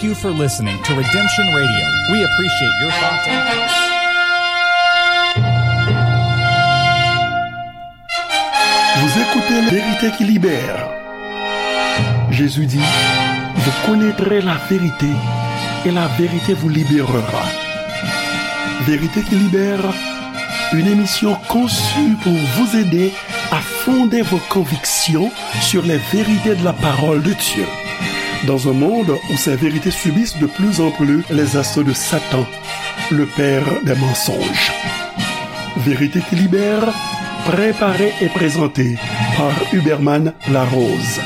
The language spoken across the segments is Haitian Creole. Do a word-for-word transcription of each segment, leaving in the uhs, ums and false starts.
Thank you for listening to Redemption Radio. We appreciate your thoughts and Vous écoutez La Vérité qui libère. Jésus dit, vous connaîtrez la vérité et la vérité vous libérera. Vérité qui libère, une émission conçue pour vous aider à fonder vos convictions sur les vérités de la parole de Dieu. Dans un monde où ces vérités subissent de plus en plus les assauts de Satan, le père des mensonges. Vérité qui libère, préparée et présentée par Huberman Larose.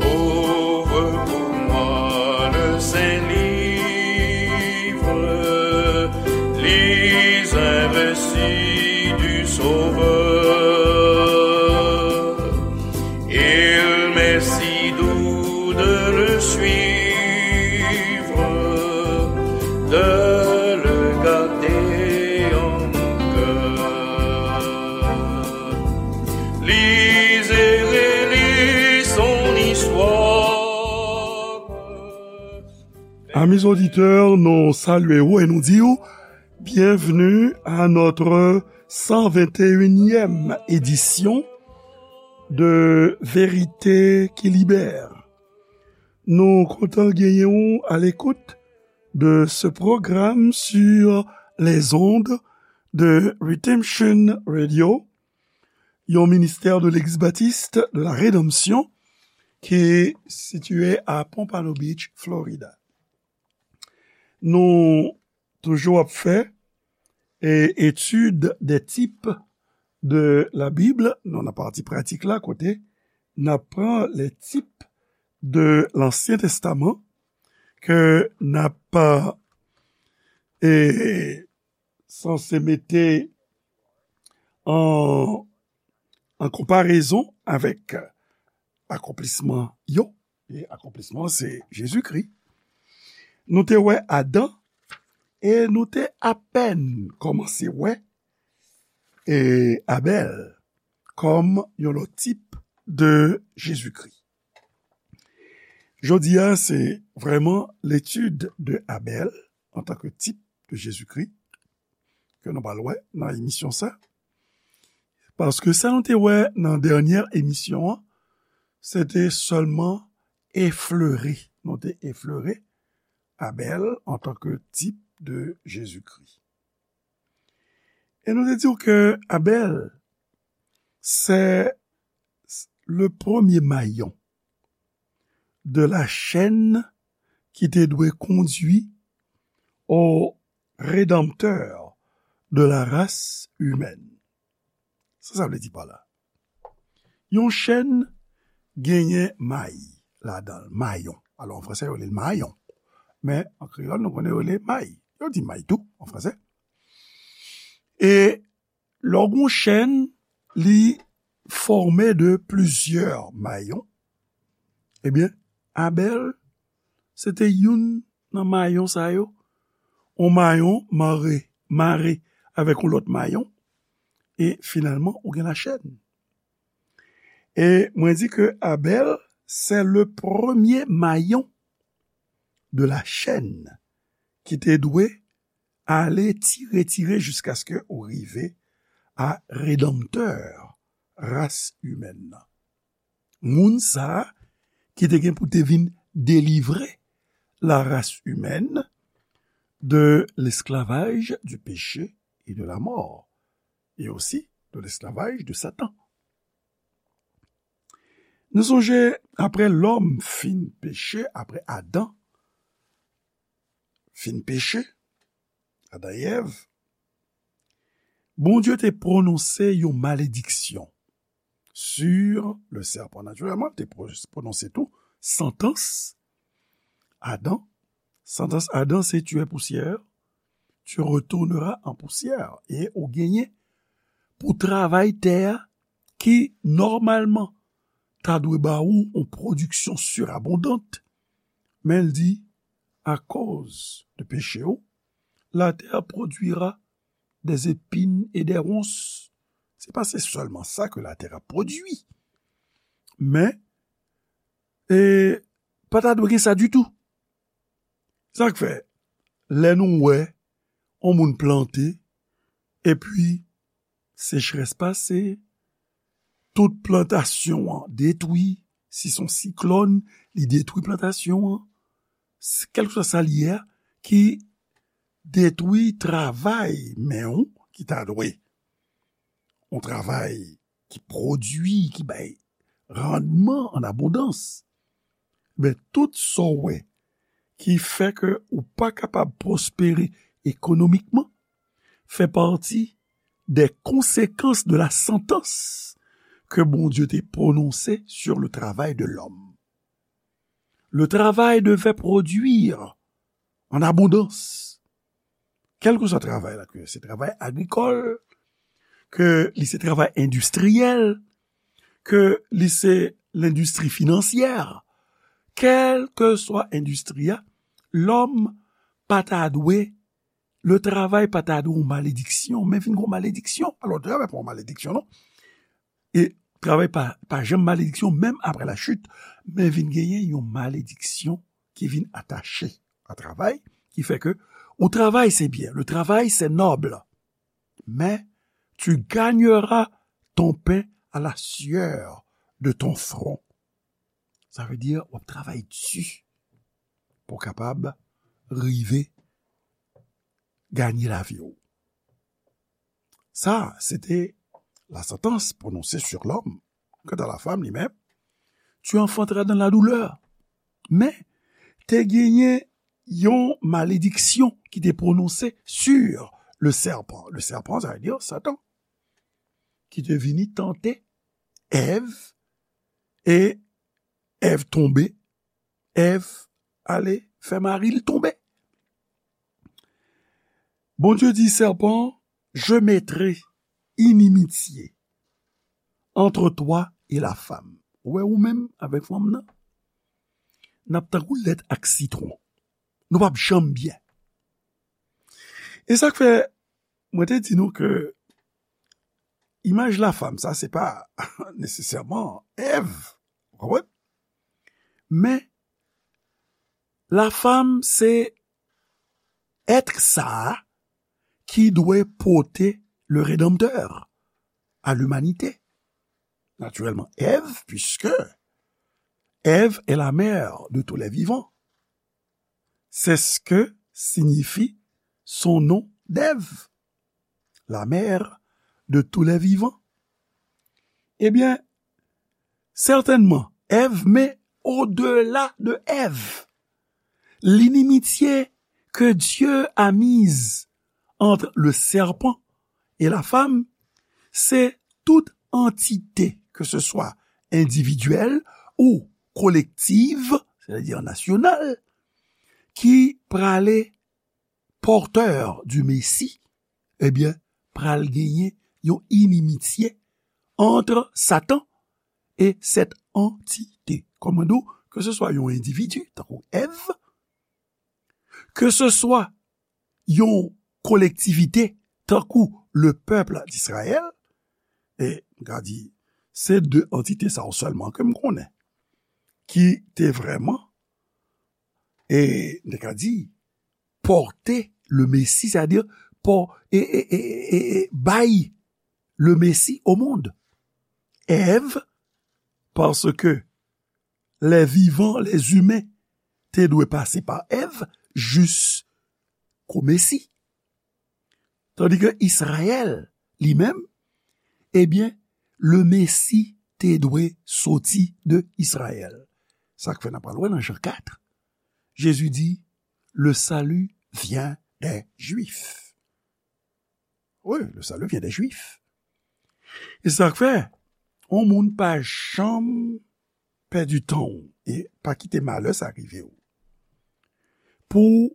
Ouvre pour moi le Saint-Livre, lis un récit du Sauveur. Il m'est si doux de le suivre, de le garder en mon cœur. Lisez et relisez son histoire. Amis auditeurs, nou salye w e nou di w bienvenue à notre cent vingt et unième édition de Vérité qui libère. Nou kontan genyen w à l'écoute de ce programme sur les ondes de Redemption Radio, yon ministè de l'Église baptiste de la Rédemption ki sitiye a Pompano Beach, Florida. Nou toujou ap fè e, étude des types de la Bible. Nou nan pati pratik la kote n ap pran les types de l'Ancien Testament ke n ap e, sanse mete an, an konparezon avèk akonplisman yo. E akonplisman se Jezikri. Nou te wè Adan e nou te apèn kòmanse wè e Abèl kòm yon lòt tip de Jezikri. Jodi a, se vrèman l'étude de Abèl antanke tip de Jezikri ke nou pral wè nan emisyon sa. Paske sa nou te wè nan dènyè emisyon an, se te sèlman eflere. Nou te eflere Abèl antanke tip de Jezikri. E nou te di w ke Abèl, se le premier maillon de la chaîne ki te dwe kondui au Rédempteur de la race humaine. Sa sa vle di pa la? Yon chèn genyen may ladan l, mayon. Alò, an fransè, yo rele l mayon. Men, an kreyòl, nou konnen yo rele may. Yo di may tou, an fransè. E lè w gen yon chèn, li fòme de plizyè mayon. Ebyen, Abèl, se te youn nan mayon sa yo. Yon mayon mare, mare avèk yon lòt mayon. E finalman, ou gen lachèn. E mwen di ke Abèl, se le premye mayon de la chaîne ki te dwe ale tire, tire jiskaske ou rive a redanmtè ras imèn nan. Moun sa a ki te gen pou te vin delivre la race humaine de l'esclavage du péché et de la mort, et aussi de l'esclavage de Satan. Nou sonje, apre lòm fin peche, apre Adan fin peche, Adan e Èv, Bondye te pwononse yon malediksyon sur le serpent. Natirèlman, te pwononse tou santans Adan. Santans Adan se tu es poussière, tu retourneras en poussière. E ou genyen pou travay tè a ki nòmalman ta dwe ba ou yon pwodiksyon sirabondant, men l di, akoz de peche w, la terre produira des épines et des ronces. Se pa se sèlman sa ke latè ap pwodui. Men, e, pa ta dwe gen sa ditou. Sa k fè, lè nou wè yon moun plante, epi sechrès pase, tout plantasyon an detwi, si se yon siklòn, li detwi plantasyon an, s-, kèlkeswa sa l ye a, ki detwi travay men w ki ta dwe. Yon travay ki pwodui, ki bay randman an abondans. Men tout sa w wè ki fè ke ou pa kapab pwospere ekonomikman, fè pati des conséquences de la sentence que Bondye te pwononse sur le travail de l'homme. Le travail devait produire en abondance. Kèlkeswa travay la, ke se travay agrikòl, ke li se travay endistriyèl, ke li se lendistri finansyè, kèlkeswa endistri a, lòm pa ta dwe, le travay pa ta dwe yon malediksyon, men vin yon malediksyon. Alò, travay pa yon malediksyon, non. E travay pa, pa janm malediksyon, menm apre la chit, men vin genyen yon malediksyon ki vin atache a travay, ki fè ke ou travay, se byen, le travail, c'est noble, mais tu gagneras ton pain à la sueur de ton front. Sa vle di, w ap travay di pou w kapab rive ganye lavi w. Sa, se te la santans pwononse sur lòm. Kanta la fanm, li menm, tu enfanteras dans la douleur. Men, te genyen yon malediksyon ki te pwononse sur le serpent. Le serpent, sa vle di Satan, ki te vini tante Èv, e Èv tonbe, Èv ale fè mari l tonbe. Bondye di sèpan, je mettrai inimitié entre toi et la femme. Ou wè ou menm avèk fanm nan, n ap tankou lèt ak sitwon. Nou p ap janm byen. E sa k fè, mwen te di nou ke imaj lafanm, sa, se pa nesesèman Èv, ou konprann? Men, lafanm, se èt sa a ki dwe pote le Rédempteur à l'humanité. Naturellement, Èv, puisque Èv est la mère de tous les vivants. C'est ce que signifie son nom d'Ève, la mère de tous les vivants. Ebyen, sètènman, Èv, men odela de Èv, l'inimitié que Dieu a mise entre le serpent et la femme, c'est toute entité, que ce soit individuelle ou collective, c'est-à-dire nationale, ki prale porteur du Messie, ebyen, pral genyen yon inimitié entre Satan et cette entité. Kòm mwen di w, ke se swa yon endividi, tankou Èv, ke se swa yon kolektivite, tankou le peuple d'Israël, e m ka di, se de antite sa yo sèlman ke m konnen, ki te vrèman, e m te ka di, pòte le Mesi, sètadi, pò-, e, e, e, e, e, bay le Mesi au monde. Èv, paske les vivants, les humains, te dwe pase pa Èv jis kou Mesi. Tandi ke Izrayèl, li menm, ebyen, le Mesi te dwe soti de Izrayèl. Sa k fè n ap pral wè nan Jan kat, Jezi di, le salut vient des Juifs. Wi, le salut vient des Juifs. E sa k fè, yon moun pa janm pèdi tan w e pa kite malè sa rive w. Pou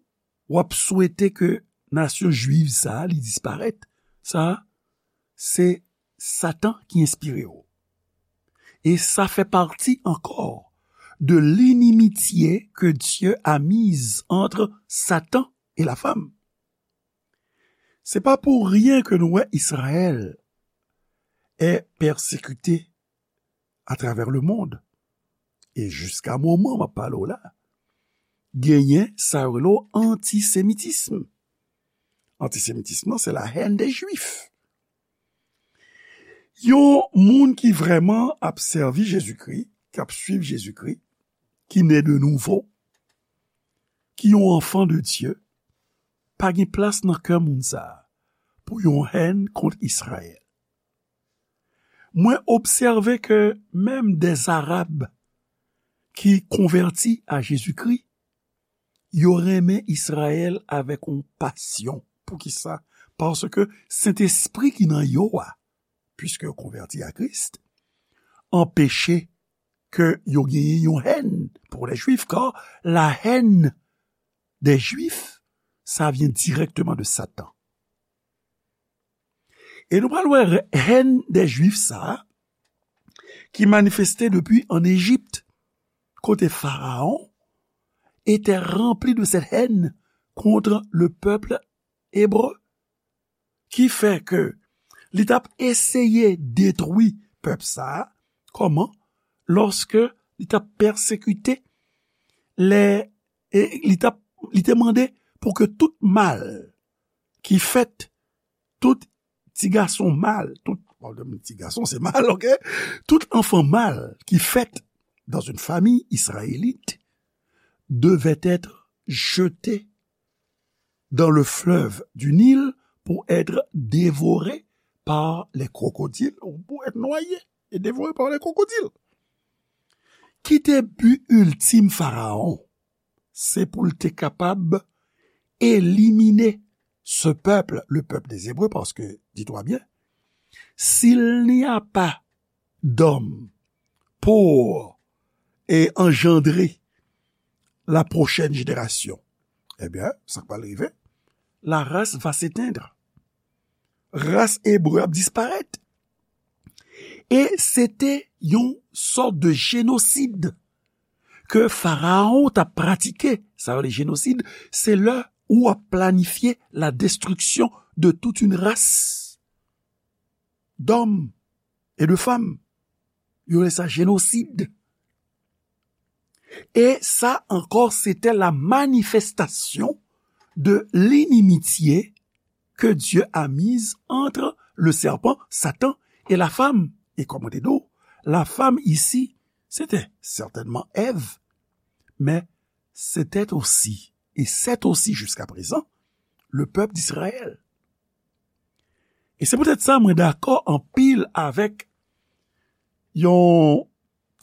w ap swete ke nasyon jwiv sa a, li disparèt, sa a, se Satan ki enspire w. E sa fè pati ankò de l'inimitié que Dieu a mise entre Satan et la femme. Se pa pou ryen ke nou wè Izrayèl est persécuté à travers le monde. E jiska moman m ap pale w la, genyen sa yo rele w antisemitism. Antisemitism lan, se la haine des Juifs. Yon moun ki vrèman ap sèvi Jezikri, k ap swiv Jezikri, ki ne de nouvo, ki yon anfan de Dye, pa gen plas nan kè moun sa a pou yon hèn kont Izrayèl. Mwen obsève ke menm dè Arab ki konvèti a Jezikri, yo renmen Izrayèl avèk yon pasyon. Poukisa? Paske Sentespri ki nan yo a, piske yo konvèti a Kris, anpeche ke yo genyen yon hèn pour les Juifs, car la haine des Juifs, ça vient directement de Satan. E nou pral wè haine des Juifs sa a, ki manifeste depi an Ejip, kote Pharaon était rempli de cette haine contre le peuple hébreu, ki fè ke li t ap eseye detwi pèp sa a. Kòman? Lòske li t ap pèsekite lè, e li t ap, li te mande pou ke tout mal ki fèt, tout ti gason mal, tout, bon, ti gason se mal, ok? Tout enfant mâle qui fèt dans une famille israélite devait être jeté dans le fleuve du Nil pour être dévoré par les crocodiles, ou pour être noyé et dévoré par les crocodiles. Ki te bi iltim Farawon? Se pou l te kapab elimine ce peuple, le peuple des Hébreux, parce que, dis-toi bien, s'il n'y a pas d'hommes pour, et engendrer la prochaine génération, eh bien, sa k pral rive, la race va s'éteindre. Ras ebre ap disparèt. E se te yon sòt de jenosid ke Farawon t ap pratike. Sa yo rele jenosid, se lè ou ap planifye la destruction de toute une race d'hommes et de femmes. Yo rele sa jenosid. E sa ankò, se te la manifestation de l'inimitié que Dieu a mise entre le serpent, Satan, et la femme. E kòm mwen te di w, la femme ici, c'était certainement Èv, mais c'était aussi, et c'est aussi jusqu'à présent, le peuple d'Israël. E se poutèt sa mwen dakò anpil avèk yon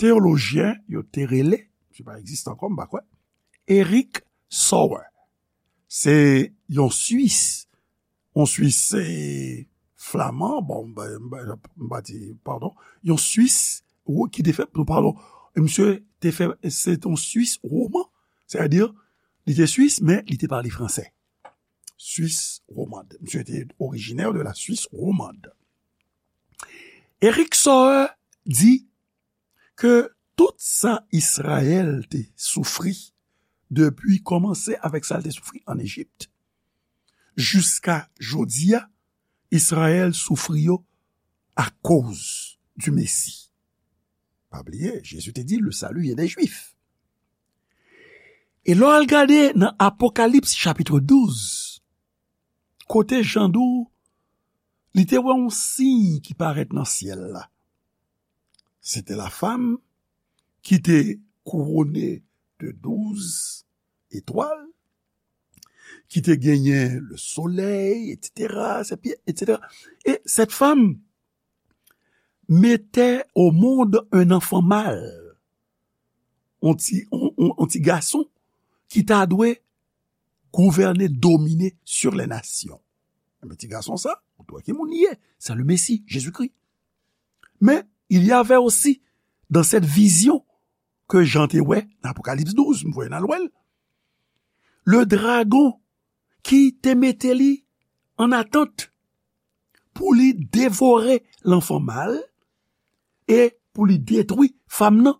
teyolojyen, yo te rele, misye pa egziste ankò, m pa kwè, Eric Sauer. Se yon Swis, yon Swis, se flaman, bon, m pa, m pa, m pa di, padon, yon Swis, ou, ki te fè, padon, misye te fè, se te yon Swis woman, sètadi, li te Swis, men li te pale fransè. Swis womand. Misye te orijinè de la Swis womand. Eric Sauer di ke tout sa Izrayèl te soufri depi kòmanse avèk sa l te soufri an Ejip, jiska jodi a, Izrayèl soufri yo akoz di Mesi. Pa bliye, Jezi te di, le salut vient des Juifs. E lè w al gade nan Apokalips chapit douz, kote Jan di w, li te wè yon siy ki parèt nan syèl la. Se te la fam ki te kouwone de douz etwal, ki te genyen le solèy, etsetera, ses pieds, etsetera. Et cette femme mettait au monde un enfant mâle, yon ti, yon, yon, yon ti gason ki ta dwe gouvène, domine sur les nations. Enben, ti gason sa, ou t wè ki moun li ye, c'est le Messie, Jésus-Christ. Mais il y avait aussi dans cette vision ke Jan te wè nan Apokalips douz, m voye n al wè l, le dragon ki te mete li an atant pou li devore lanfan mal e pou li detwi fam nan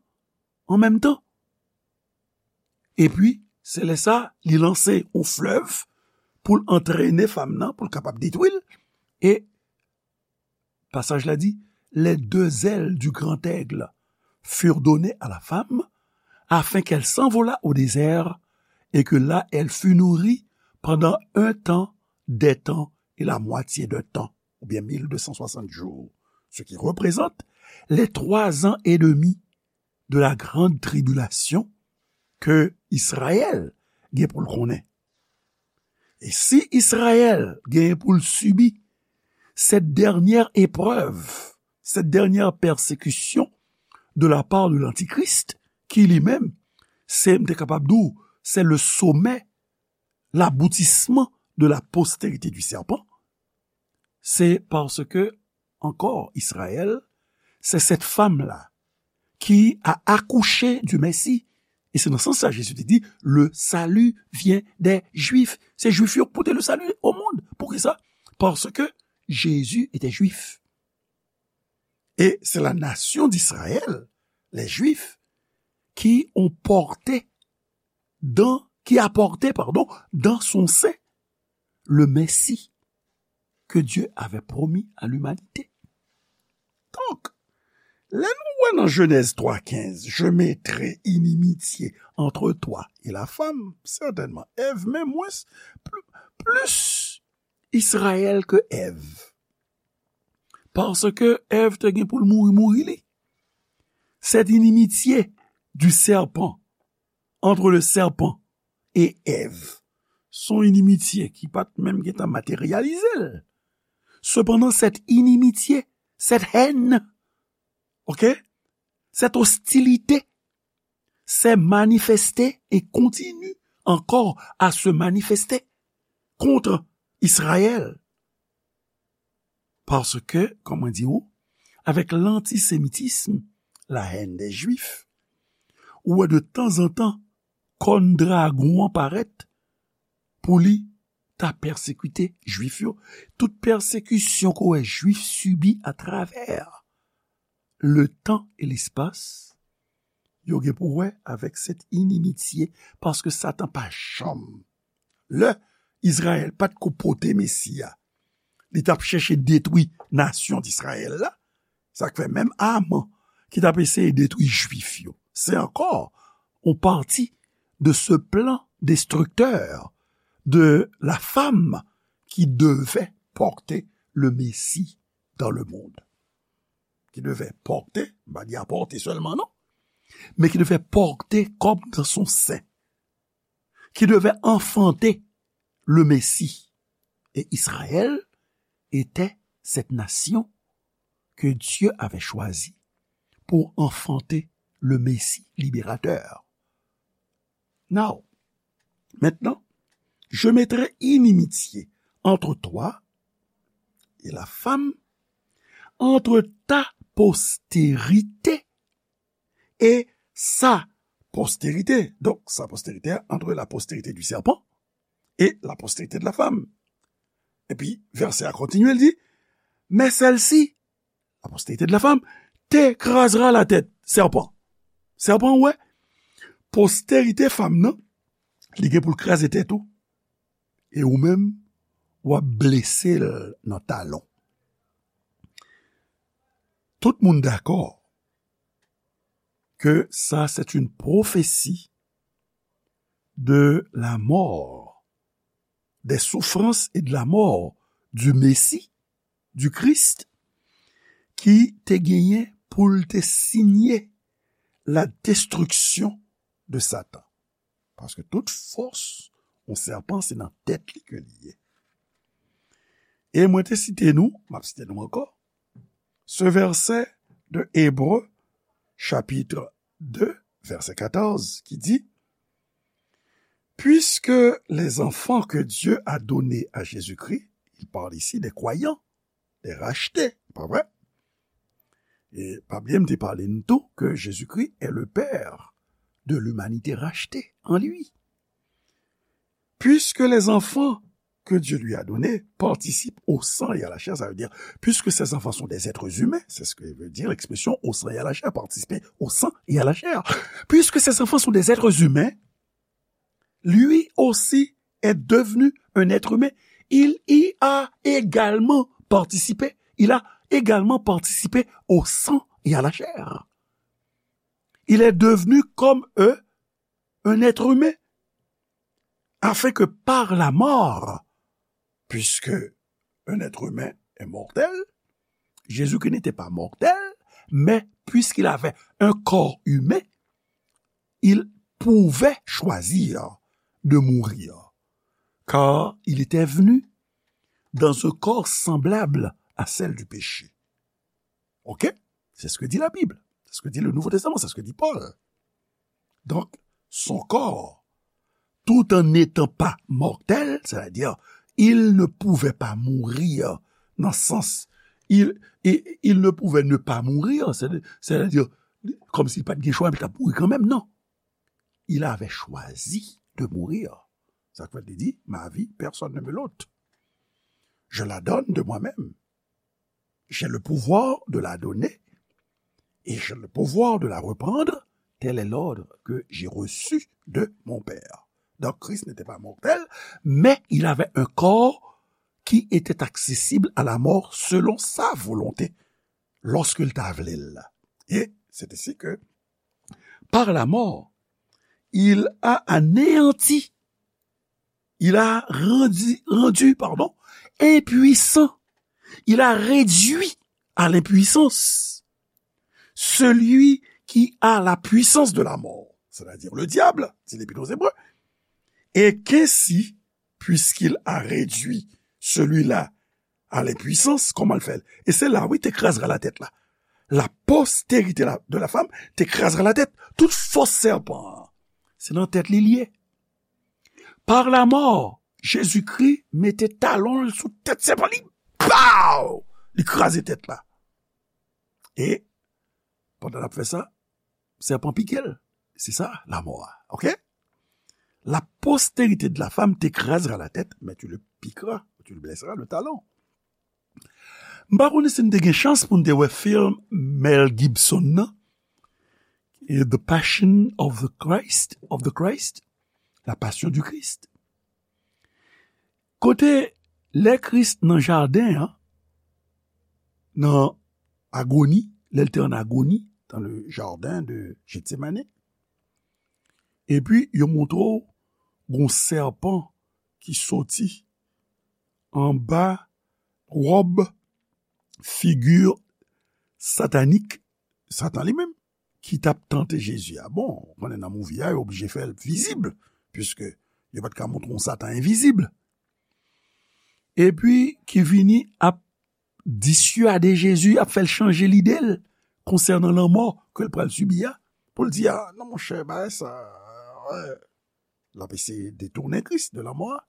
an menm tan. Epi, se lè sa, li lanse yon flèv pou l antrene fanm nan, pou l kapab detwi l. E pasaj la di, les deux ailes du grand aigle furent données à la femme, afin qu'elle s'envolât au désert, et que là elle fût nourrie pendant un temps, des temps et la moitié d'un temps, ou bien mille deux cent soixante jours, ce qui représente les trois ans et demi de la grande tribulation ke Izrayèl gen pou l konnen. E si Izrayèl gen pou l sibi cette dernière épreuve, cette dernière persécution de la part de l'Antichrist, ki li menm, se, m te kapab di w, c'est le sommet, l'aboutissement de la postérité du serpent, c'est parce que, encore, Israël, c'est cette femme-là qui a accouché du Messie. E se nan sans sa Jezi te di, le salut vient des Juifs. Se Jwif yo ki pote le salut au monde. Poukisa? Parce que Jésus était juif. Et c'est la nation d'Israël, les Juifs, qui ont porté dans, qui a porté, pardon, dans son sein le Messie que Dieu avait promis à l'humanité. Donk, lè nou wè nan Jenèz twa kenz, je mettrai inimitié entre toi et la femme, sètènman, Èv, men mwens, pl-, plis Izrayèl ke Èv. Paske Èv te gen pou l mouri, mouri li. Cette inimitié du serpent, entre le serpent et Èv, se yon inimitye ki pa t menm gentan materyalize l. Sepandan, cette inimitié, cette haine, ok, cette hostilité s'est manifestée et continue encore à se manifester contre Israël. Paske, kòman di ou, avec l'antisémitisme, la haine des Juifs, ou wè de tanzantan kòn dragon an parèt pou li ta pèsekite Jwif yo. Tout pèsekisyon ke w wè Jwif sibi atravè le temps et l'espace, yo gen pou wè avèk cette inimitié, paske Satan pa janm, lè Izrayèl pa t ko pote Mesi a, li t ap chèche detwi nasyon Izrayèl la. Sa k fè menm Aman ki t ap eseye detwi Jwif yo, se ankò yon pati de ce plan destructeur de la femme qui devait porter le Messie dans le monde. Qui devait porter, m pa di apòte sèlman non, mais qui devait porter comme dans son sein, qui devait enfanter le Messie. Et Israël était cette nation que Dieu avait choisie pour enfanter le Messie libérateur. Now, maintenant, je mettrai inimitié entre toi et la femme, entre ta postérité et sa postérité. Donc, sa postérité, entre la postérité du serpent et la postérité de la femme. Epi, vèsè a kontinye, l di, mais celle-ci, la postérité de la femme, t'écrasera la tête. Sèpan. Sèpan, ou wè, postérité fanm nan, li gen pou l kraze tèt ou. E ou menm, w ap blese l nan talon. Tout moun dakò que ça, c'est une prophétie de la mort, des souffrances et de la mort du Messie, du Christ, ki te genyen pou l te siyen la destriksyon de Satan. Paske tout fòs yon sèpan se nan tèt li ke li ye. E mwen te site nou, m ap site nou ankò, ce verset de Hébreux, chapitre deux, verset quatorze, qui dit, puisque les enfants que Dieu a donnés à Jésus-Christ, il parle ici des croyants, des rachetés, pa vre? E pa bliye m te pale n tou que Jésus-Christ est le père de l'humanité rachetée en lui. Puisque les enfants que Dieu lui a donnés participent au sang et à la chair, ça veut dire, puisque ces enfants sont des êtres humains, c'est ce que veut dire l'expression au sang et à la chair, participer au sang et à la chair. Puisque ces enfants sont des êtres humains, lui aussi est devenu un être humain, il y a également participé. Il a également participé au sang et à la chair. Il est devenu comme eux un être humain, afin que par la mort, puisque un être humain est mortel, Jésus-Christ n'était pas mortel, mais puisqu'il avait un corps humain, il pouvait choisir de mourir, car il était venu dans un corps semblable à celle du péché. Ok? C'est ce que dit la Bible. C'est ce que dit le Nouveau Testament. C'est ce que dit Paul. Donc, son corps, tout en n'étant pas mortel, c'est-à-dire, il ne pouvait pas mourir dans le sens, il, il, il ne pouvait ne pas mourir, c'est-à-dire, comme s'il pas de choix, il a mouru quand même, non. Il avait choisi de mourir. Ça veut dire, ma vie, personne ne me l'ôte. Je la donne de moi-même. J'ai le pouvoir de la donner et j'ai le pouvoir de la reprendre. Tel est l'ordre que j'ai reçu de mon Père. Donc Christ n'était pas mortel, mais il avait un corps qui était accessible à la mort selon sa volonté, lorsqu'il t'a voulu. Et c'est ainsi que, par la mort, il a anéanti, il a rendu, rendu, pardon, impuissant, il a réduit à l'impuissance celui qui a la puissance de la mort, c'est-à-dire le diable, dit l'Épître aux Hébreux, et qu'ainsi, puisqu'il a réduit celui-là à l'impuissance, comment le fait? Et c'est là, oui, te krasera la tête là. La postérité la- de la femme te krasera la tête. Tout fos sèpan, c'est dans tête li lié. Par la mort, Jésus-Christ mete talon l sou tèt sèpan li. Pow! Li kraze tèt la. E pandan l ap fè sa, sèpan pike l. Se sa, lamò a. Ok? La postérité de la femme t'écrasera la tête, mais tu le piqueras, tu le blesseras le talon. M pa konnen si n te gen chans pou n te wè film Mel Gibson nan, The Passion of the Christ, of the Christ, La Passion du Christ. Kote lè Kris nan jaden an, nan agoni, lè l te an agoni, dans le jardin de Gethsemane, epi yo montre w gon sèpan ki soti anba wòb figi satanik, Satan li menm, ki t ap tante Jezi a. Bon, ou konnen nan movie a, yo oblije fè l vizib, piske yo pa t ka montre yon Satan envizib. Epi ki vini ap disyade Jezi, ap fè l chanje lide l konsènan lanmò ke l pral sibi a, pou l di, a, non, monchè, bagay sa, wè. L ap eseye detounen Kris de lanmò a.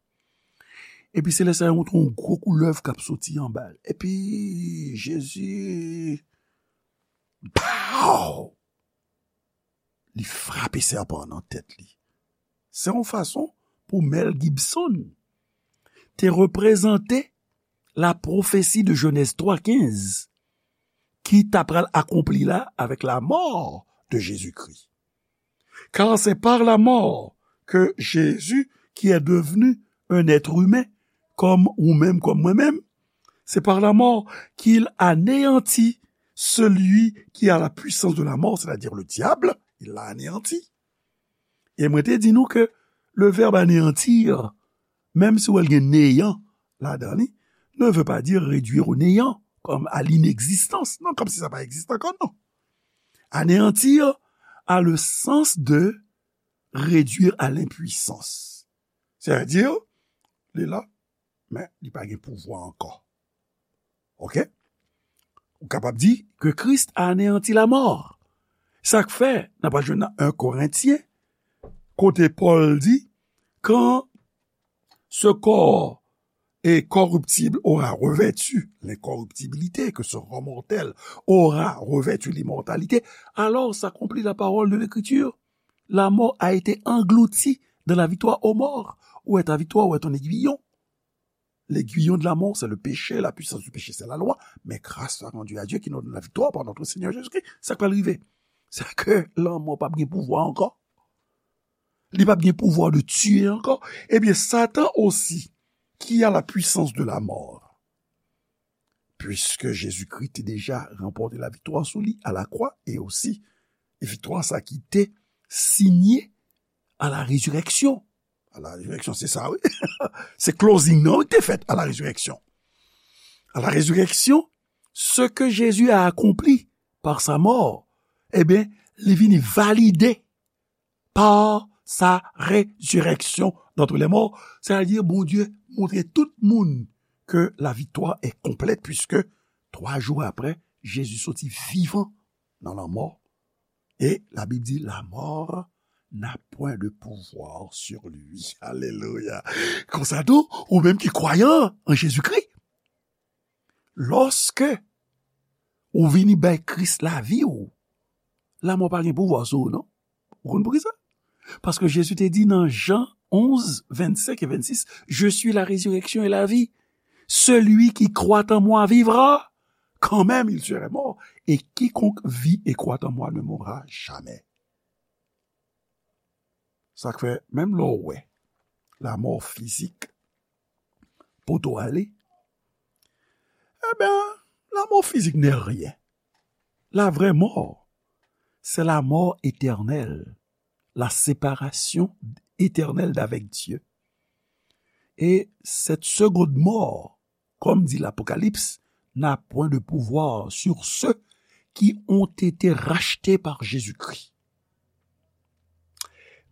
Epi se lè sa yo montre yon gwo koulèv k ap soti anba l. Epi Jezi, pow! Li frape sèpan an nan tèt li. Se yon fason pou Mel Gibson te reprezante la prophétie de Genèse twa kenz ki ta pral akonpli la avec la mort de Jésus-Christ. Car c'est par la mort que Jésus, qui est devenu un être humain, comme ou même, comme moi-même, c'est par la mort qu'il anéantit celui qui a la puissance de la mort, c'est-à-dire le diable, il l'a anéanti. E mwen te di nou ke le verbe anéantir, menm si w wè l gen néant ladan li, ne veut pas dire réduire au néant, comme à l'inexistence. Non, comme si sa pa egziste ankò, non. Anéantir a le sens de réduire à l'impuissance. C'est-à-dire, li la, men li pa gen pouvwa ankò. Ok? Ou kapab di que Christ a anéanti la mort. Sa k fè, n ap al jwenn nan un Korentyen, kote Pòl di, quand ce corps est corruptible aura revêtu l'incorruptibilité, que ce corps mortel aura revêtu l'immortalité, alors s'accomplit la parole de l'Écriture. La mort a été engloutie dans la victoire aux morts. Où est ta victoire? Où est ton aiguillon? L'aiguillon de la mort, c'est le péché, la puissance du péché, c'est la loi, mais grâce soit rendue à Dieu qui nous donne la victoire par notre Seigneur Jésus-Christ. Sa k pral rive? Se ke lanmò p ap gen pouvwa ankò. Li p ap gen pouvwa de tiye ankò. Ebyen, Satan osi, qui a la puissance de la mort. Puisque Jésus-Christ te deja ranpòte laviktwa sou li a lakwa, e osi, e viktwa sa ki te sinye a la résurrection. A la résurrection, se sa, wi. Se closing nan, wi, ki te fèt a la résurrection. À la résurrection, ce que Jésus a accompli par sa mort, ebyen, li vini valide par sa résurrection d'entre les morts. Sètadi, Bondye montre tout moun ke la victoire est complète, puisque twa jou apre, Jezi soti vivan nan lanmò. E Labib di, la mort n'a point de pouvoir sur lui. Alelouya. Konsa tou, ou menm ki kwayan an Jezikri, lòske ou vini bay Kris lavi w, lanmò pa gen pouvwa sou ou, non. Ou konn poukisa? Paske Jezi te di nan Jan onz, vennsenk e vennsis, Je suis la résurrection et la vie. Celui qui croit en moi vivra, quand même il serait mort. Et quiconque vit et croit en moi ne mourra jamais. Sa k fè, menm lè w wè lamò fizik poto ale, ebyen, la mort physique n'est rien. La vraie mort, c'est la mort éternelle, la séparation éternelle d'avec Dieu. Et cette seconde mort, comme dit l'Apocalypse, n'a point de pouvoir sur ceux qui ont été rachetés par Jésus-Christ.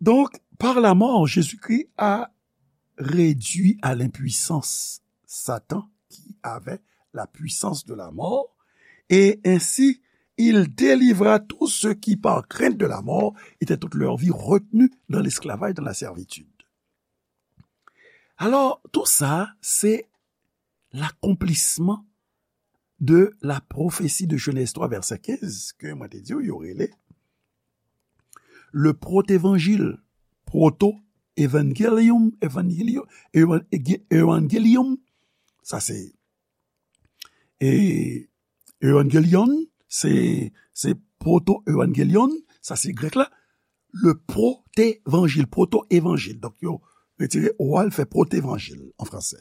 Donc, par la mort, Jésus-Christ a réduit à l'impuissance Satan qui avait la puissance de la mort, et ainsi il délivra tous ceux qui, par crainte de la mort, étaient toute leur vie retenus dans l'esclavage, dans la servitude. Alors, tout ça, c'est l'accomplissement de la prophétie de Genèse trois, verset quinze, ke mwen te di w, yo rele le protévangile, proto-évangélium, évangélium, évan-, évangélium, sa se, e, évangélion, se, se proto-évangélion, sa se grèk la, le protévangile, proto-évangile. Donk, yo retire o a, l fè protévangile an fransè.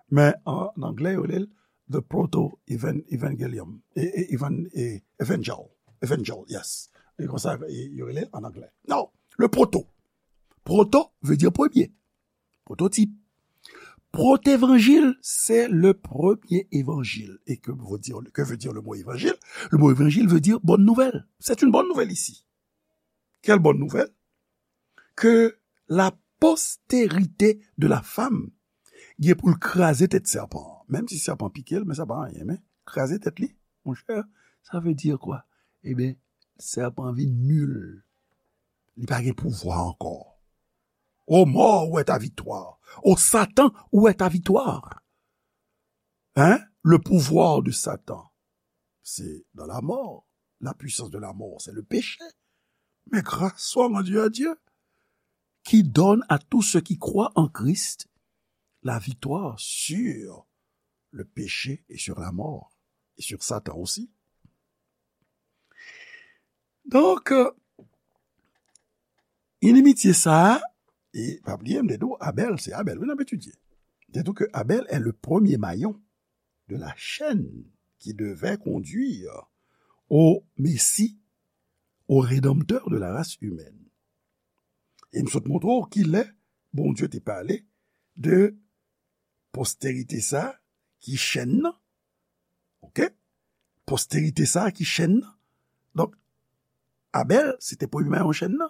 Men an anglè, yo rele l the proto-evangelium. E, e, evan-, e, evangel. Evangel, yes. E konsa, e, yo rele l an anglè. Non, le proto. Proto veut dire premier. Prototype. Protévangile, c'est le premier évangile. Et que veut dire, que veut dire le mot évangile? Le mot évangile veut dire bonne nouvelle. C'est une bonne nouvelle ici. Quelle bonne nouvelle? Que la postérité de la femme gen pou l kraze tèt sèpan an. Menm si sèpan pike l, men sa pa anyen, men kraze tèt li, monchè, sa vle di kwa? Ebyen, sèpan vin nil. Li pa gen pouvwa ankò. O mort, où est ta victoire? O Satan, où est ta victoire? Hein? Le pouvoir de Satan, c'est dans la mort. La puissance de la mort, c'est le péché. Mais grâce soit rendue à Dieu, qui donne à tous ceux qui croient en Christ la victoire sur le péché et sur la mort, et sur Satan aussi. Donk, euh, inimitye sa a, e pa bliye, m te di w, Abèl, se Abèl, wi, n ap etidye. M te di w ke Abèl est le premier maillon de la chaîne qui devait conduire au Messie, au Rédempteur de la race humaine. E m sot montre w kilè Bondye te pale de posterite sa ki chèn nan. Oke? Posterite sa ki chèn nan. Donk, Abèl, se te premye mayon chèn nan.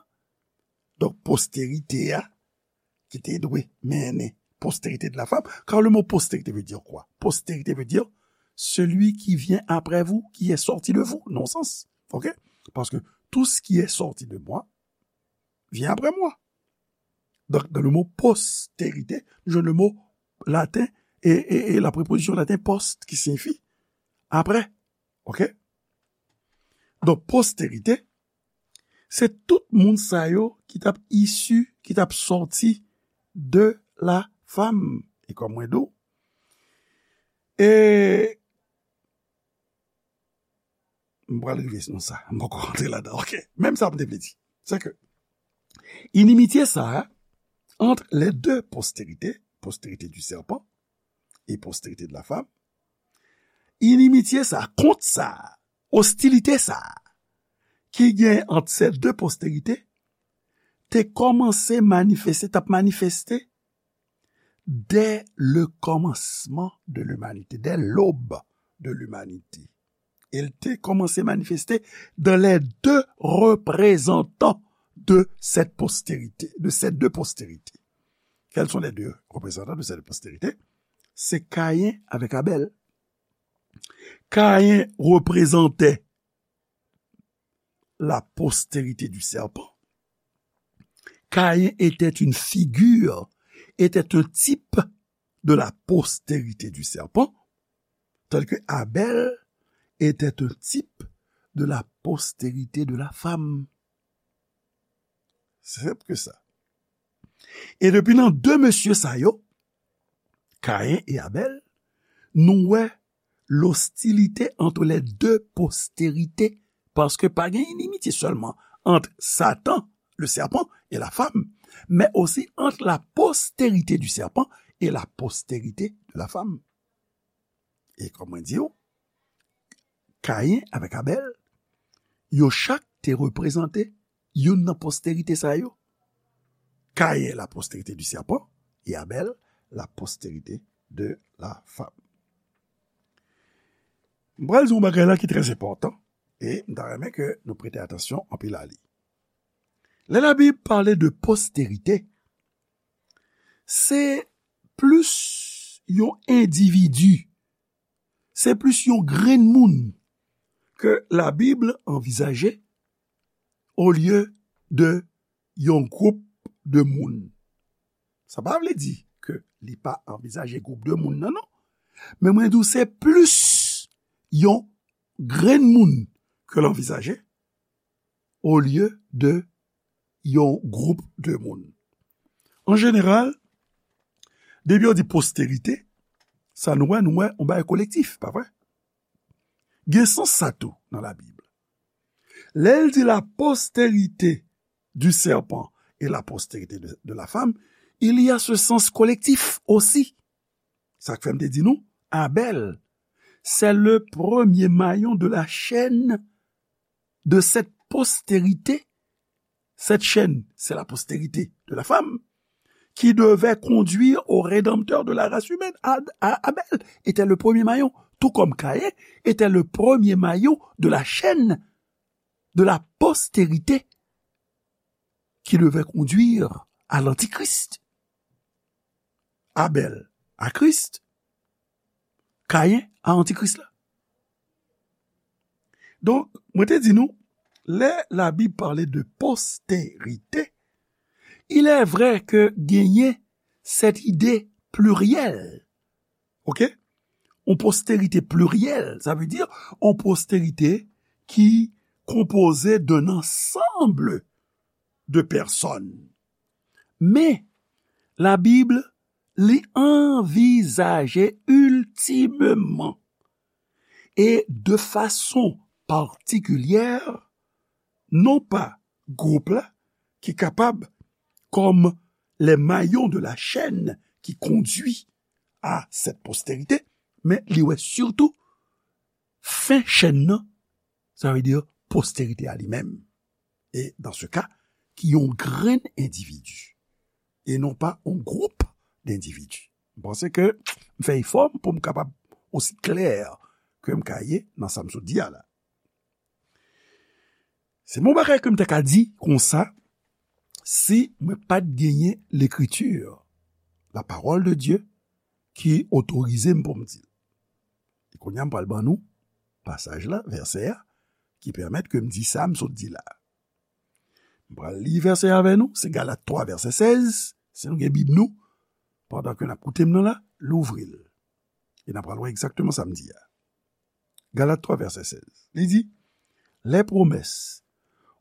Donk, posterite a, ki te dwe mennen postérité de la femme, car le mot postérité veut dire quoi? Postérité veut dire celui qui vient après vous, qui est sorti de vous, nan sans. Oke? Parce que tout ce qui est sorti de moi vient après moi. Donc, dans le mot postérité, nou jwenn le mot laten e, e, e la préposition laten post ki siyifi après. Oke? Donk, postérité, se tout moun sa yo ki t ap isi, ki t ap sòti de la femme. E kòm mwen di w, e m pral rive nan sa, m poko rantre ladan. Oke, menm sa m te vle di, se ke inimitye sa a, entre les deux postérités, postérité du serpent et postérité de la femme, inimitye sa, kont sa, ostilite sa, ki gen ant ces deux postérités, te kòmanse manifeste, t ap manifeste dès le commencement de l'humanité, dès l'aube de l'humanité. E l te kòmanse manifeste dans les deux représentants de cette postérité, de ces deux postérités. Quels sont les deux représentants de cette postérité? Se Kayen avèk Abèl. Kayen reprezante la postérité du serpent. Caïn était une figure, était un type de la postérité du serpent, tandis que Abel était un type de la postérité de la femme. Se senp ke sa. E depi nan de mesye sa yo, Caïn et Abel, nou wè l'hostilité entre les deux postérités, paske pa gen inimitye sèlman ant Satan, le serpent, et la femme, men osi ant la postérité du serpent et la postérité de la femme. E kòm mwen di w, Caïn avèk Abel, yo chak te reprezante youn nan postérite sa yo. Caïn, la postérité du serpent, et Abel, la postérité de la femme. M pral di yon bagay la ki trè enpòtan, e m ta renmen ke nou prete atansyon anpil a li. Lè Labib pale de postérite, se plis yon endividi, se plis yon grenn moun ke Labib anvizaje olye de yon gwoup de moun. Sa pa vle di ke li pa anvizaje gwoup de moun nan, non. Men mwen di w se plis yon grenn moun ke l anvizaje olye de yon gwoup de moun. An jeneral, depi yo di postérite, sa nou wè, nou wè yon bagay kolektif, pa vre? Gen sans sa tou nan Labib. Lè l di la postérité du serpent et la postérité de, de la femme, il y a ce sens collectif aussi. Sa k fè m te di nou, Abel, c'est le premier maillon de la chaîne de cette postérité. Cette chaîne, c'est la postérité de la femme qui devait conduire au Rédempteur de la race humaine. Ad- A- Abel était le premier maillon, tout comme Caïn était le premier maillon de la chaîne de la postérité qui devait conduire à l'Antichrist. Abel à Christ, Caïn à Antichrist la. Donk, mwen te di nou, lè Labib pale de postérite, il est vrai ke genyen cette idée plurielle. Ok? Yon postérite pliryèl, sa vle di yon postérite ki konpoze d'un ensemble de personnes. Men, Labib, li anvizaje iltimeman e de fason patikilyè, non pa gwoup la ki kapab, comme les maillons de la chaîne qui conduit à cette postérité, men li wè sitou fen chèn nan, sa vle di postérite a li menm. E dans ce cas, ki yon grenn endividi, e non pa yon gwoup d'endividi. M panse ke m fè efò m pou m kapab osi klè ke m ka ye nan sa m sot di a la. Se yon bagay ke m te ka di konsa, si mwen pa t genyen Lekriti, la parole de Dieu, ki otorize m pou m di l. E kounye a, m pral ban nou pasaj la, vèsè a, ki pèmèt ke m di sa m sot di la. M pral li vèsè a avè nou, se Galat twa, vèsè sèz, si nou gen Bib nou, pandan ke n ap koute m nan la, louvri l. E n ap pral wè egzakteman sa m di a. Galat twa, vèsè sèz. Li di, les promesses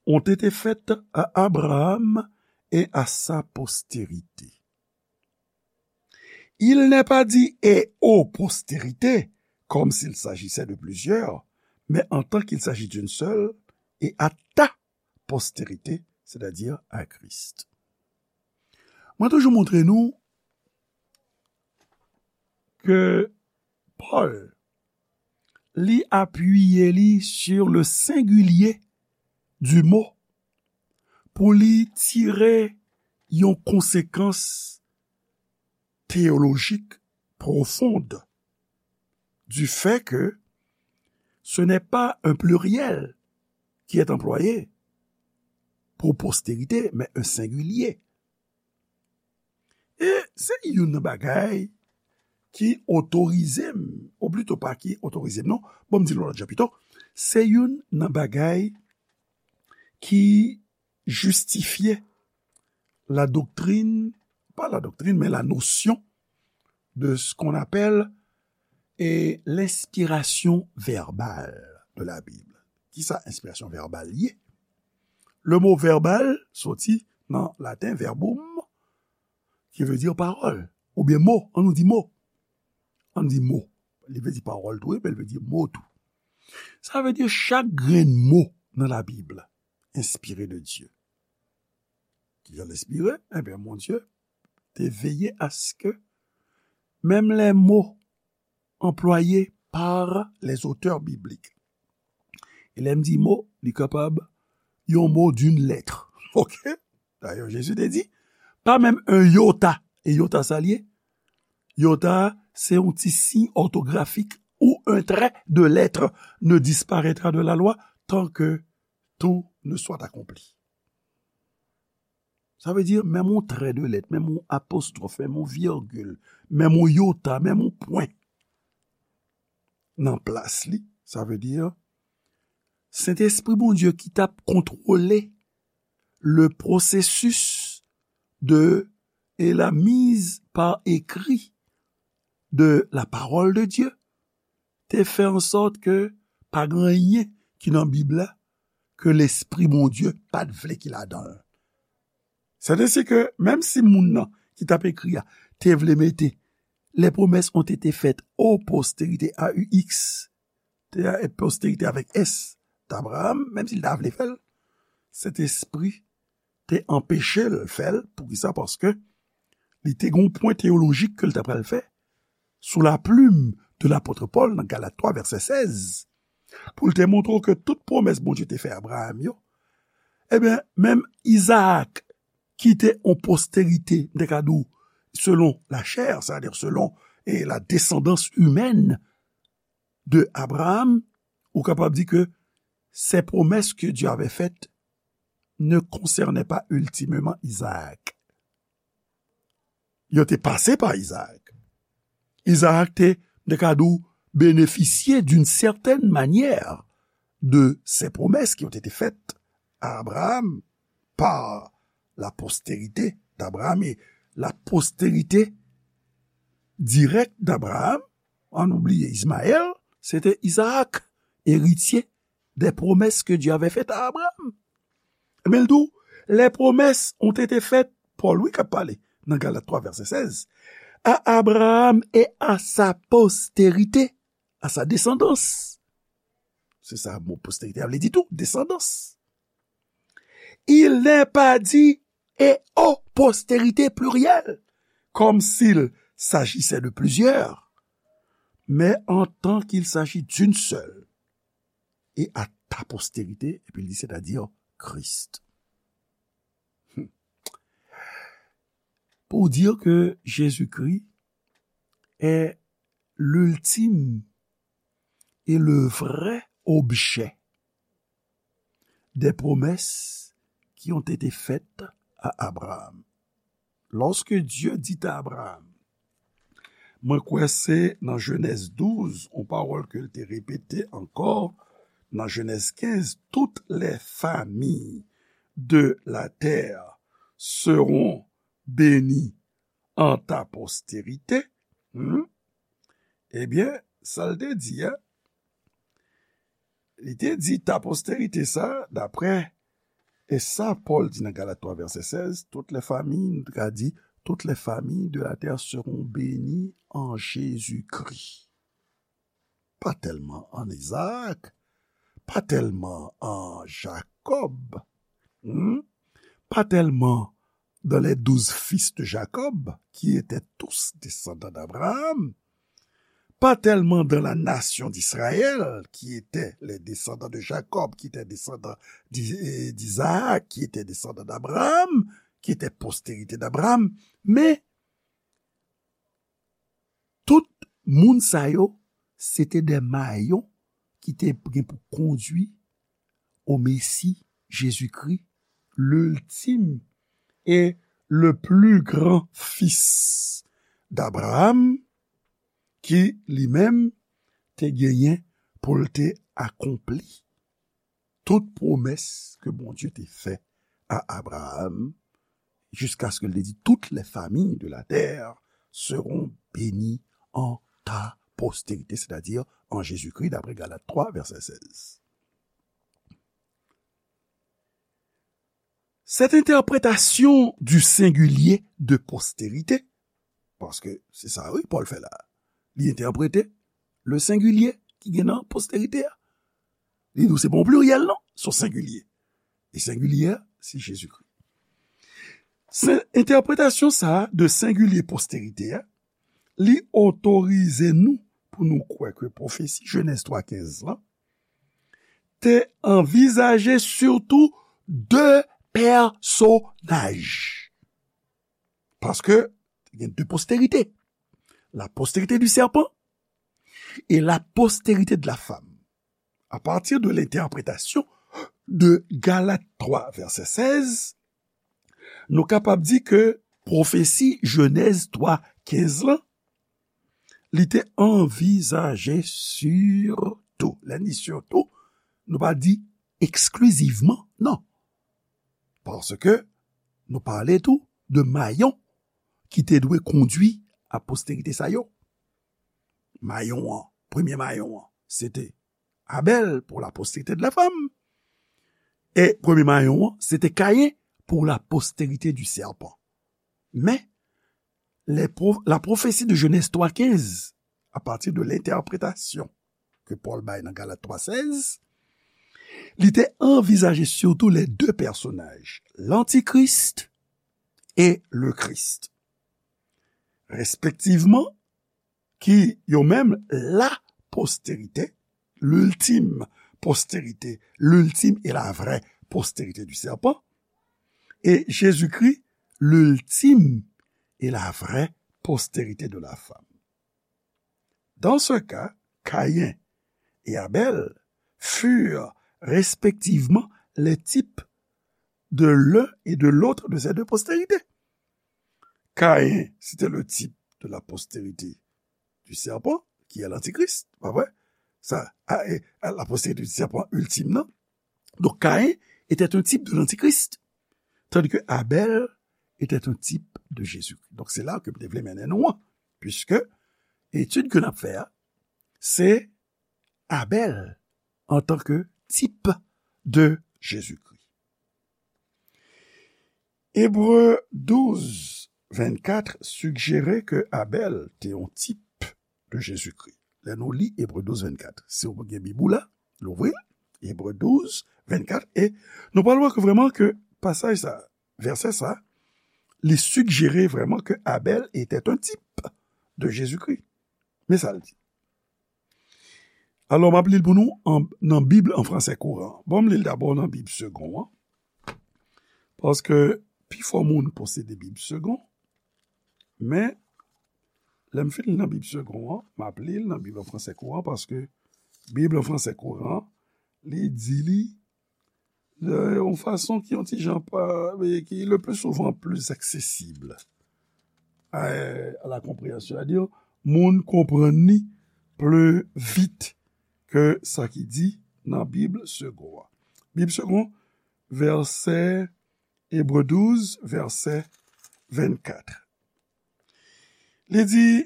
ont été faites à Abraham et à sa postérité. Il n'est pas dit et aux postérités, comme s'il s'agissait de plusieurs, mais en tant qu'il s'agit d'une seule, et à ta postérité, c'est-à-dire à Christ. Mwen toujou montre nou ke Pòl, li apiye li sur le singulier du mot pou li tire yon konsekans théologique profonde du fait que ce n'est pas un pluriel qui est employé pour postérité, mais un singulier. E se youn nan bagay ki otorize m, ou plito pa ki otorize m, non, bon, m di l yon lòt jan pito, se youn nan bagay ki jistifye la doctrine, pas la doctrine, mais la notion de ce qu'on appelle et l'inspiration verbale de la Bible. Kisa enspirasyon vèbal ye? Le mo vèbal soti nan laten verbum, ki vle di pawòl, oubyen mo, an nou di mo. An di mo. Li vle di pawòl tou, men li vle di mo tou. Sa vle di chak grenn mo nan Labib enspire de Dye. Kijan l enspire? Ebyen, Bondye te veye aske menm les mots employés par les auteurs bibliques. E lè m di mo, li kapab yon mo d'une lettre. Ok? Dayè, Jezi te di, pa menm un iota. E iota sa l ye? Iota, se yon ti siy òtografik ou un trait de lettre ne disparaîtra de la loi tant que tout ne soit accompli. Sa vle di, menm yon trait de lettre, menm yon apostwòf, menm yon virgil, menm yon iota, menm yon pwen nan plas li, sa vle di, Sentespri Bondye ki t ap kontwole le processus de et la mise par écrit de la parole de Dieu te fè an sòt ke pa gen anyen ki nan Bib la ke Lespri Bondye pa t vle ki ladan l. C'est ainsi que, menm si moun nan ki t ap ekri a te vle mete les promesses ont été faites aux postérités, A U X, te a postérité avec S, d'Abraham, menm si l ta vle fè l, Sentespri te anpeche l fè l. Poukisa? Paske li te gen yon pwen teyolojik ke l ta pral fè sou la plume de lapot Pòl nan Galat twa, vèsè sèz, pou l te montre w ke tout pwomès Bondye te fè Abraham yo, ebyen, menm Izaak, ki te yon postérité, m te ka di w, selon la chair, c'est-à-dire selon, eh, la descendance humaine de Abraham, ou kapab di ke ces promesses que Dieu avait faites ne concernaient pas ultimement Isaac. Yo te pase pa Izaak. Izaak te, m te ka di w, benefisye d'une certaine manière de ces promesses qui ont été faites à Abraham par la postérité d'Abraham et la postérité directe d'Abraham, an nou bliye Ismaël, se te Izaak, eritye des promesses que Dieu avait faites à Abraham. Men l di w, les promesses ont été faites, Pòl wi k ap pale nan Galat twa, vèsè sèz, à Abraham et à sa postérité, à sa descendance. Se sa mo postérité a vle di tou, descendance. Il n'est pas dit et aux postérités plurielles, comme s'il s'agissait de plusieurs, mais en tant qu'il s'agit d'une seule, et à ta postérité, epi l di, c'est-à-dire Christ. Hmm. Pour dire que Jésus-Christ est l'ultime et le vrai objet des promesses qui ont été faites à Abraham. Lorsque Dieu dit à Abraham, mwen kwè se nan Jenèz douz, yon pawòl ke l te repete ankò nan Jenèz kenz, toutes les familles de la terre seront bénies en ta postérité. Hmm? Ebyen, sa l te di a, li te di ta postérité sa, daprè e sa Pòl di nan Galat twa, vèsè sèz, toutes les familles, nou ka di, toutes les familles de la terre seront bénies en Jésus-Christ. Pa tèlman an Izaak, pa tèlman an Jakòb, hmm? Pa tèlman dans les douze fils de Jacob, qui étaient tous descendants d'Abraham, pas tellement dans la nation d'Israël, qui étaient les descendants de Jacob, qui étaient descendants d'I- d'Isaac, qui étaient descendants d'Abraham, qui étaient postérité d'Abraham, men tout moun sa yo, se te de mayon ki te gen pou kondui au Messie Jésus-Christ, l'ultime et le plus grand fils d'Abraham, ki li menm te genyen pou l te akonpli tout pwomès ke Bondye te fè a Abraham, jusqu'à ce que l te di, toutes les familles de la terre seront bénies en ta postérité, c'est-à-dire en Jésus-Christ, d'après Galates trois, verset seize. Cette interprétation du singulier de postérité, paske se sa, wi, Pòl fè la. Li entèprete le singulier ki gen nan postérité a. Li di w se pa yon pliryèl, non, se yon singulier. E singulier a, se Jezikri. Se entèpretasyon sa a de singulier postérité a, li otorize nou pou nou kwè ke pwofesi Jenèz twa kenz lan te anvizaje sitou de pèsonaj. Paske te gen de postérité. La postérité du serpent et la postérité de la femme. À partir de l'interprétation de Galates trois, verset seize, nou kapab di ke pwofesi Jenèz twa kenz lan, li te anvizaje sitou, lè n di sitou, nou pa di eksklizivman, non. Paske nou pale tou de mayon ki te dwe kondui a postérité sa yo. Mayon an, premye mayon an, se te Abèl pour la postérité de la femme. E premye mayon an, se te Kayen pour la postérité du serpent. Men, les pro- la prophétie de Genèse trois quinze, à partir de l'interprétation que Paul bay nan Galat twa sèz, li te anvizaje sitou les deux personnages, l'Antichrist et le Christ. Respectivement, ki yo menm la postérité, l'ultime postérité, l'ultime et la vraie postérité du serpent, et Jésus-Christ, l'ultime et la vraie postérité de la femme. Dans ce cas, Caïn et Abel furent respectivement les types de l'un et de l'autre de ces deux postérités. Caïn, c'était le type de la postérité du serpent, qui est l'antichrist, pa vre? Sa, a, e, a, la postérité du serpent ultime, non? Donc, Caïn était un type de l'antichrist, tandis que Abel était un type de Jésus-Christ. Donc, c'est là que je voulais mener nous, puisque étude que nous faisons, c'est Abel en tant que type de Jésus-Christ. Ebre douz vennkat sijere ke Abèl te yon tip de Jezikri. Lè nou li Ebre douz vennkat, si w gen Bib ou la, louvri l, Ebre douz vennkat, e nou pral wè ke vrèman ke pasaj sa, vèsè sa, li sijere vrèman ke Abèl était un type de Jésus-Christ. Men sa l di. Alò, m ap li l pou nou an, nan Bib an fransè kouran. Bon, m li l dabò nan Bib segon an. Paske pifò moun posede Bib segon. Men, lè m fin li nan Bib segon an, m ap li l nan Bib an fransè kouran, paske Bib an fransè kouran, li di li yon fason ki yon ti jan pa, ki le plus souvent plus accessible à, à la compréhension. C'est-à-dire, moun konprann li plus vite ke sa ki di nan Bib segon an. Bib segon, vèsè, Ebre douz, vèsè vennkat. Li di,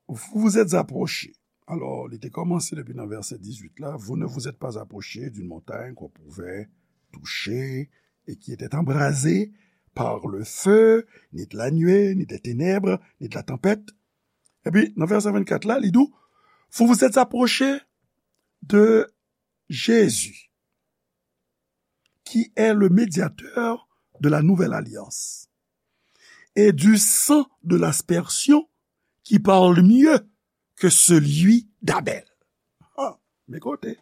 vous vous êtes approchés. Alors, li te kòmanse depi nan vèsè dizuit la, vous ne vous êtes pas approchés d'une montagne qu'on pouvait toucher et qui était embrasée par le feu, ni de la nuée, ni des ténèbres, ni de la tempête. Epi, nan vèsè vennkat la, li di, vous vous êtes approchés de Jésus, qui est le médiateur de la nouvelle alliance, et du sang de l'aspersion qui parle mieux que celui d'Abel. Ah, men kote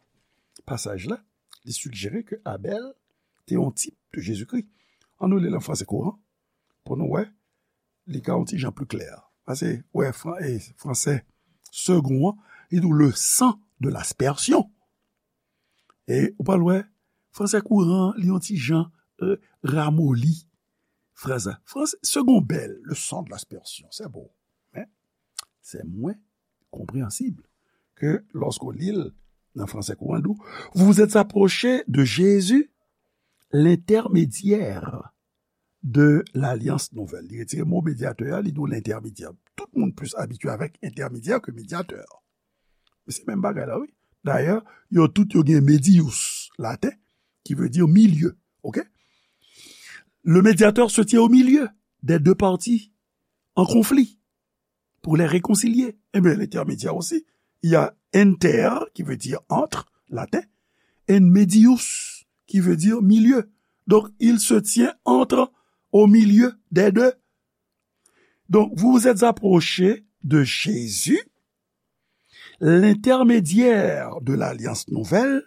pasaj la, li sijere ke Abèl te yon tip de Jezikri. Ann nou li l an franse kouran pou nou wè, li ka yon ti jan pli klè. Paske, wè, fran, e, franse segon an, li di w le sang de l'aspersion. E ou pral wè, franse kouran, li yon ti jan, e, ramoli fraz la. Franse segon bèl, le sang de l'aspersion, c'est beau. Men, se mwen konpreyansib ke lòske w li l nan franse kouran, l di w, vous vous êtes approchés de Jésus, l'intermédiaire de l'alliance nouvelle. Li retire mo medyatè a, li di w lentèmedyè. Tout moun plis abitye avèk entèmedyè ke medyatè. Men se menm bagay la, wi. Dayè, yo tout yo gen medius, laten, ki vle di milye. Ok? Le médiateur se tient au milieu des deux parties en conflit pour les réconcilier. Eh bien, l'intermédiaire aussi, il y a inter, qui veut dire entre, laten, et medius, qui veut dire milieu. Donc, il se tient entre, au milieu des deux. Donc, vous vous êtes approchés de Jésus, l'intermédiaire de l'alliance nouvelle,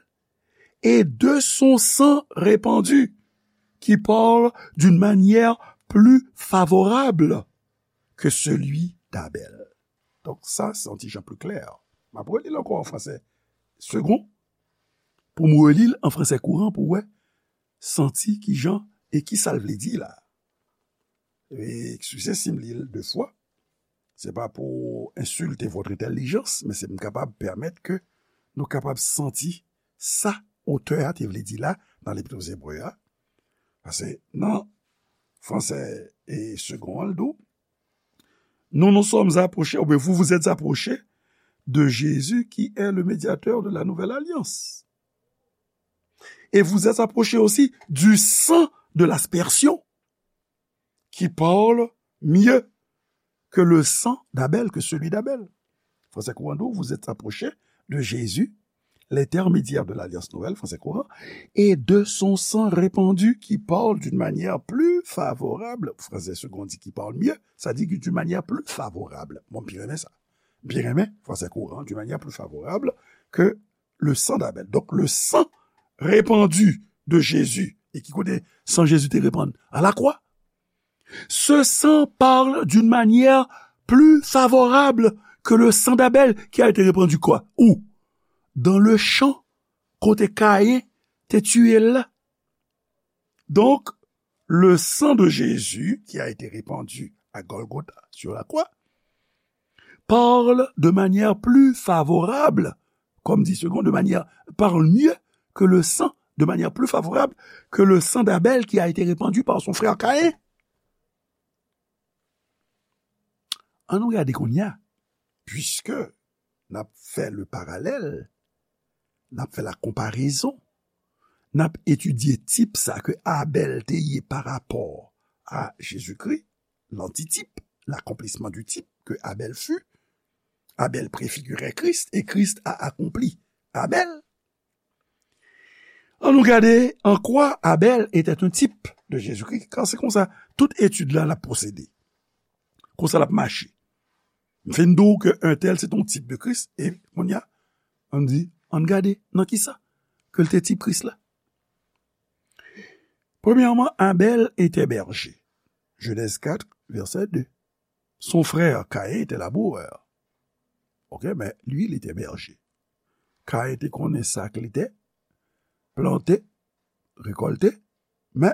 et de son sang répandu, qui parle d'une manière plus favorable que celui d'Abel. Donk, sa, se yon ti jan pli klè. M ap reli l ankò an franse segon, pou m reli l an franse kouran, pou w wè, santi ki jan e ki sa l vle di la. E, eskize si m li l de fwa. Se pa pou ensilte votre intelligence, men se pou m kapab pèmèt ke nou kapab santi sa otè a te vle di la nan Lepit aux Hébreux a. Paske nan franse e segon an, l di w, nous nous sommes approchés, ou bien vous vous êtes approchés de Jésus qui est le médiateur de la nouvelle alliance. Et vous êtes approchés aussi du sang de l'aspersion qui parle mieux que le sang d'Abel, que celui d'Abel. Franse kouran di w, vous êtes approchés de Jésus, l'intermédiaire de l'alliance nouvelle, franse kouran, et de son sang répandu qui parle d'une manière plus favorable, franse segon di qui parle mieux, sa di ki d'une manière plus favorable. Bon, m byen renmen sa. M byen renmen franse kouran, d'une manière plus favorable que le sang d'Abel. Donc, le sang répandu de Jésus, e ki kote san Jezi te repann? À la croix. Ce sang parle d'une manière plus favorable que le sang d'Abel qui a été répandu quoi? Où? Dans le champ, kote Kayen te tiye l la. Donc, le sang de Jésus qui a été répandu à Golgotha sur la croix parle de manière plus favorable, comme dit Second, de manière, parle mieux que le sang, de manière plus favorable que le sang d'Abel qui a été répandu par son frère Caïn. Ann nou gade kounye a, puiske n ap fè le parallèle, n ap fè la comparaison, n ap etidye tip sa ke Abèl te ye pa rapò a Jezikri, l'antitype, l'accomplissement du type que Abel fut. Abel préfigurait Christ et Christ a accompli Abel. Ann nou gade en quoi Abel était un type de Jésus-Christ. Kan se konsa, tout etid la, l ap pwosede. Konsa l ap mache. M fin di w ke entèl se t on tip de Kris, e kounye a, ann di, ann gade nan kisa ke l te tip Kris la. Premyèman, Abel était berger. Genèse quatre, verset deux. Son frère Caïn était laboureur. Ok, men li, li te bèje. Caïn te konnen sa ke li te plante, rekòlte, men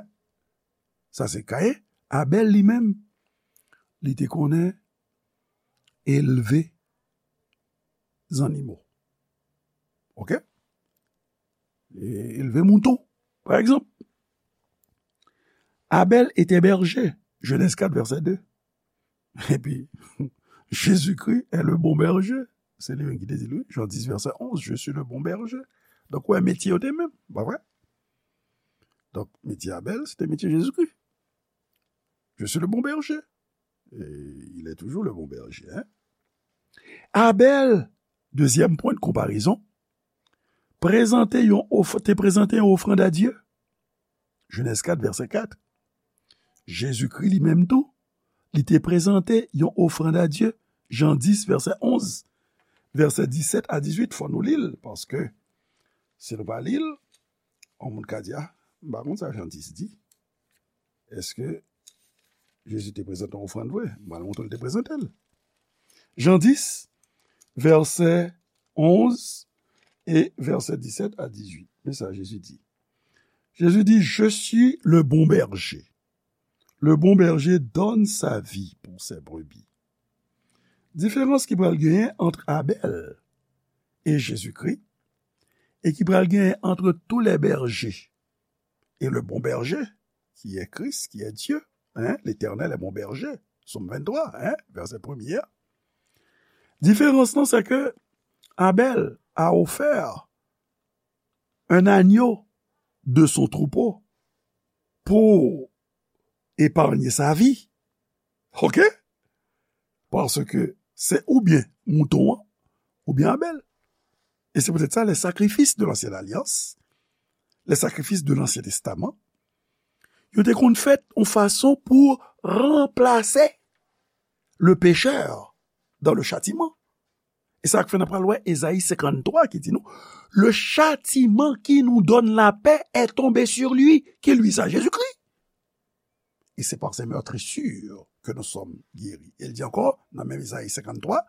sa se Caïn. Abel li menm, li te konnen elve zannimo. Ok? E elve mouton, pa egzanp. Abel était berger, Genèse quatre, verset deux. Epi, Jésus-Christ est le bon berger. Se li menm ki te di l, wi, Jan dis, vèsè onz, je suis le bon berger. Donk, wè, metye yo te menm, pa vre? Donk, metye Abel, se te metye Jezikri. Je suis le bon berger. Et il est toujours le bon berger, hein? Abel, dezyèm pwen de konparezon, prezante yon of-, te prezante yon ofrann a Dye. Genèse quatre, verset quatre. Jezikri li menm tou, li te prezante yon ofrann a Dye. Jan dis, vèsè onz, vèsè disèt a dizuit, fò nou li l, paske si nou pa li l, yon moun ka di, a, m pa konn sa Jan dis di. Èske Jezi te prezante yon ofrann vre? M pral montre l te prezante l. Jan dis, vèsè onz e vèsè disèt a dizuit. Men sa Jezi di. Jezi di, je suis le bon berger. Le bon berger donne sa vie pour ses brebis. Diferans ki pral genyen ant Abèl e Jezikri, e ki pral genyen ant tous les bergers et le bon berger, qui est Christ, qui est Dieu, hein, l'Éternel est mon berger, Sòm venntwa, hein, vèsè premye a. Diferans lan, se ke Abèl a ofè un agneau de son troupeau pour épargner sa vie. Ok? Paske se oubyen mouton an, oubyen Abèl. E se poutèt sa, les sacrifices de l'ancienne alliance, les sacrifices de l'Ancien Testament, yo te konn fèt yon fason pou ranplase le pécheur dans le châtiment. E sa k fè n ap pral wè Ezayi senkanntwa ki di nou, le châtiment qui nous donne la paix est tombé sur lui. Qui lui ça? Jésus-Christ. Et c'est par ses meurtrissures que nous sommes guéris. E l di ankò, nan menm Ezayi senkanntwa,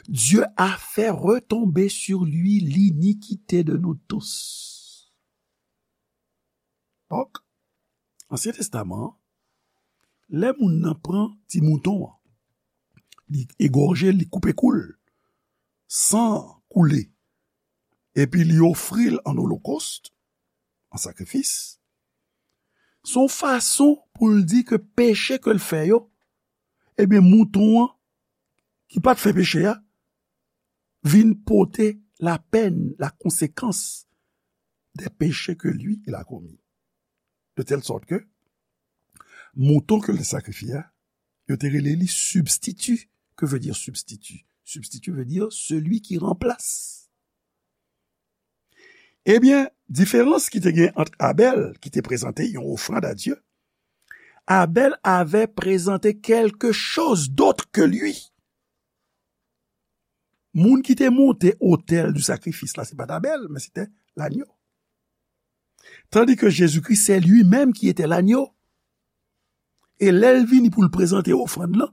Dieu a fait retomber sur lui l'iniquité de nous tous. Donk, Ansyen Testaman an, lè moun nan pran ti mouton an, li egòje l, li koupe kou l, san koule, epi li ofri l an olokòst, an sakrifis, se yon fason pou l di ke peche ke l fè yo, ebyen, mouton an, ki pa t fè peche a, vin pote la peine, la conséquence des péchés que lui, il a commis. De telle sorte que mouton ke l te sakrifye a, yo te rele li substitut. Que veut dire substitut? Substitut veut dire celui qui remplace. Ebyen, diferans ki te gen ant Abèl, ki te prezante yon ofrann a Dye, Abèl avè prezante quelque chose d'autre que lui. Moun ki te monte otèl du sacrifice la, se pa t Abèl, men se te lanyo. Tandis que Jésus-Christ, c'est lui-même qui était l'agneau. E lè l vini pou l prezante ofrann lan,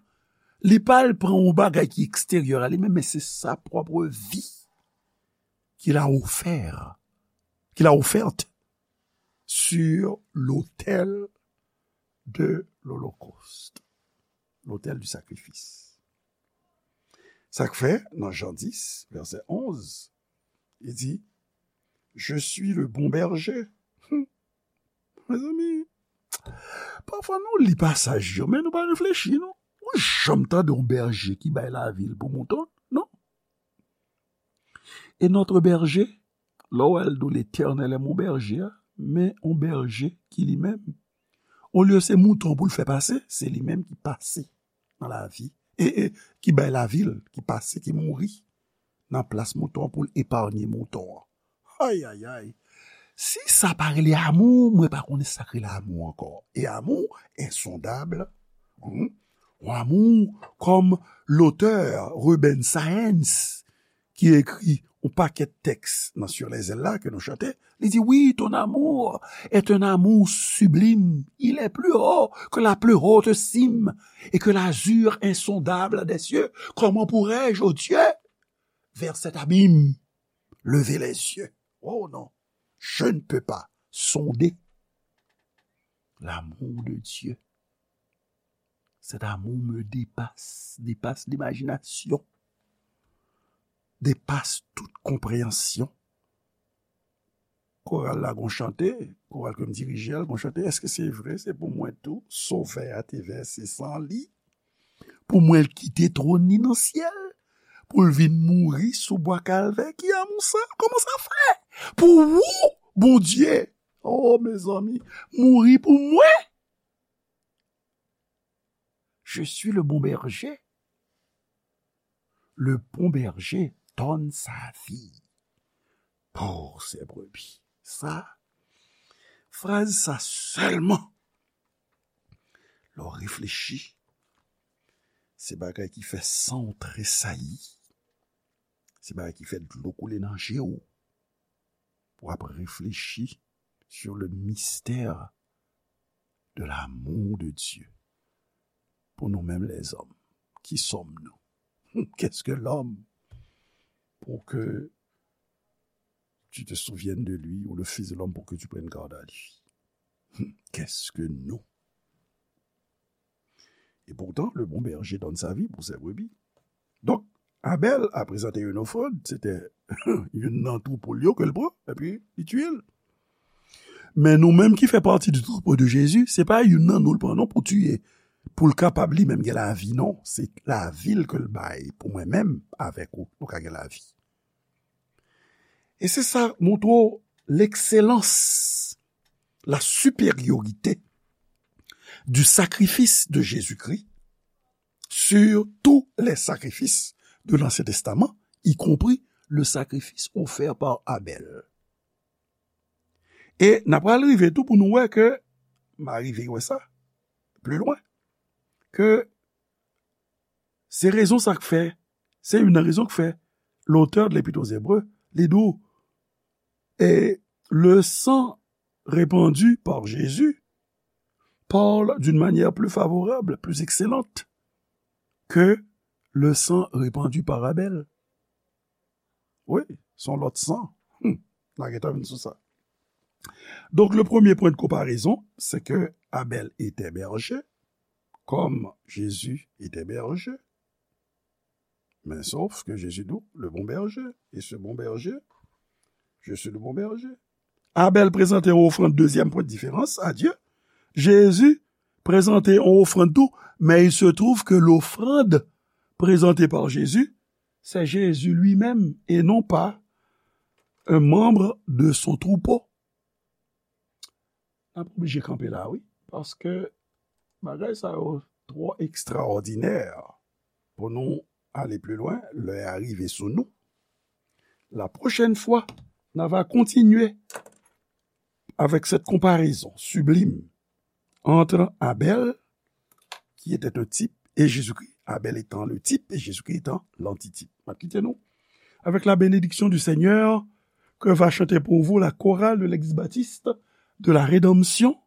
li pa al pran yon bagay ki eksteryè a li menm, men se sa pwòp vi qu'il a offert, qu'il a offerte sur l'autel de l'holocauste, l'autel du sacrifice. Sa k fè, nan Jan dis, vèsè onz, li di, je suis le bon berger. Mezanmi, pafwa nou li pasaj yo, men nou pa reflechi, non. Ou janm tande yon bèje ki bay lavi l pou mouton, non? Et notre berger, lè w wè l di w, Letènèl est mon berger, men yon bèje ki li menm, olye se mouton pou l fè pase, se li menm ki pase nan lavi, e, e ki bay lavi l, ki pase, ki mouri nan plas mouton an pou l epanye mouton an. Ayayay! Si sa pa rele amou, mwen pa konnen sa k rele amou ankò. E amou ensondab, hmm, yon amou kòm lotè Ruben Saenz, ki ekri yon pakèt tèks nan Sur les ailes la ke nou chante, li di, oui, ton amour est un amour sublime, il est plus haut que la plus haute cime et que l'azur insondable des cieux. Comment pourrais-je, ô Dieu, vers cet abîme, lever les yeux? Oh non, je ne peux pas sonder l'amour de Dieu. Cet amour me dépasse, dépasse l'imagination, dépasse toute compréhension. Koral la gon chante, koral ke m dirije a, l gon chante, èske se vre, se pou mwen tou, Sovè a te vèse san li, pou mwen l kite twòn li nan syèl, pou l vin mouri sou bwa Kalvè? Ki amou sa? Kòman sa fè? Pou ou, Bondye, oh, mezanmi, mouri pou mwen? Je suis le bon berger. Le bon berger donne sa vie pour ses brebis. Sa, fraz sa sèlman, lè w reflechi, Se bagay ki fè san w tresayi. Se bagay ki fè dlo koule nan je w. Pou w ap reflechi sur le mystère de l'amour de Dieu. Pour nous-mêmes les hommes, qui sommes-nous? Qu'est-ce que l'homme pour que tu te souviennes de lui, ou le Fils de l'homme pour que tu prennes garde à lui? Qu'est-ce que nous? Et pourtant, le bon berger donne sa vie pour ses brebis. Donk, Abèl a prezante yon ofrann, se te youn nan twoupo l yo ke l pran, epi li tiye l. Men nou menm ki fè pati di twoupo de Jezi, se pa youn nan nou l pran non pou tiye, pou l kapab li menm gen lavi non, se lavi l ke l bay pou mwen menm avèk ou, nou ka gen lavi. E se sa montre w l'excellence, la supériorité du sacrifice de Jésus-Christ sur tous les sacrifices de l'Ancien Testament, y compris le sacrifice offert par Abel. E n ap pral rive tou pou nou wè ke, m a rive wè sa, pli lwen, ke se rezon sa k fè, se youn nan rezon k fè l'auteur de l'Épître aux Hébreux, li di w, et le sang répandu par Jésus parle d'une manière plus favorable, plus excellente que le sang répandu par Abel. Wi, se yon lòt san. Hmm, n a gentan vin sou sa. Donc, le premier point de comparaison, c'est que Abel était berger, comme Jésus était berger. Mais sauf que Jésus dit, le bon berger, et ce bon berger, je suis le bon berger. Abèl prezante yon ofrann, dezyèm pwen de diferans, a Dye. Jezi prezante yon ofrann tou, men il se trouve que l'offrande présentée par Jésus, c'est Jésus lui-même et non pas un membre de son troupeau. N ap oblije kanpe la, wi, paske bagay sa yo twò ekstraòdinè pou nou ale pli lwen, lè a rive sou nou. La prochaine fois, n a va continuer avec cette comparaison sublime entre Abel, qui était un type, et Jésus-Christ. Abel étant le type et Jésus-Christ étant l'antitype. M ap kite nou avec la bénédiction du Seigneur que va chanter pour vous la chorale de l'Église baptiste de la Rédemption.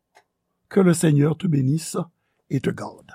Que le Seigneur te bénisse et te garde.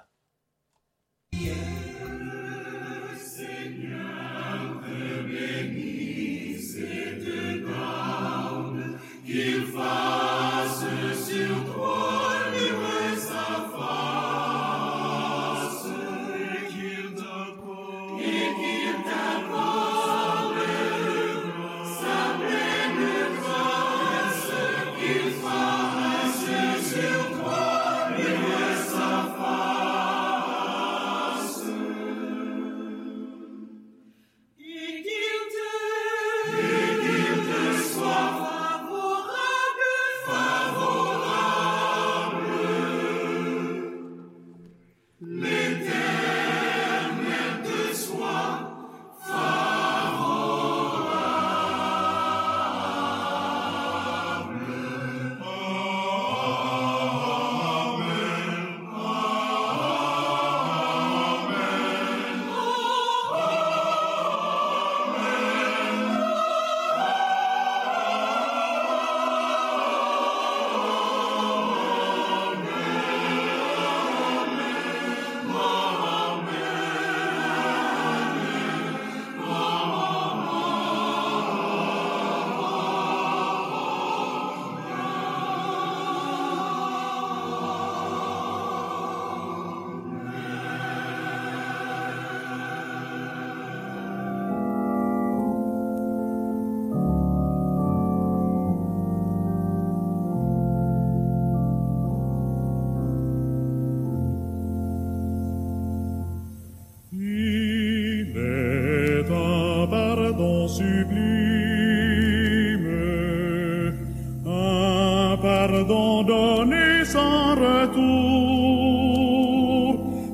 Il est un pardon sublime, un pardon donné sans retour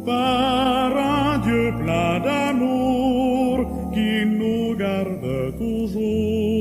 par un Dieu plein d'amour qui nous garde toujours.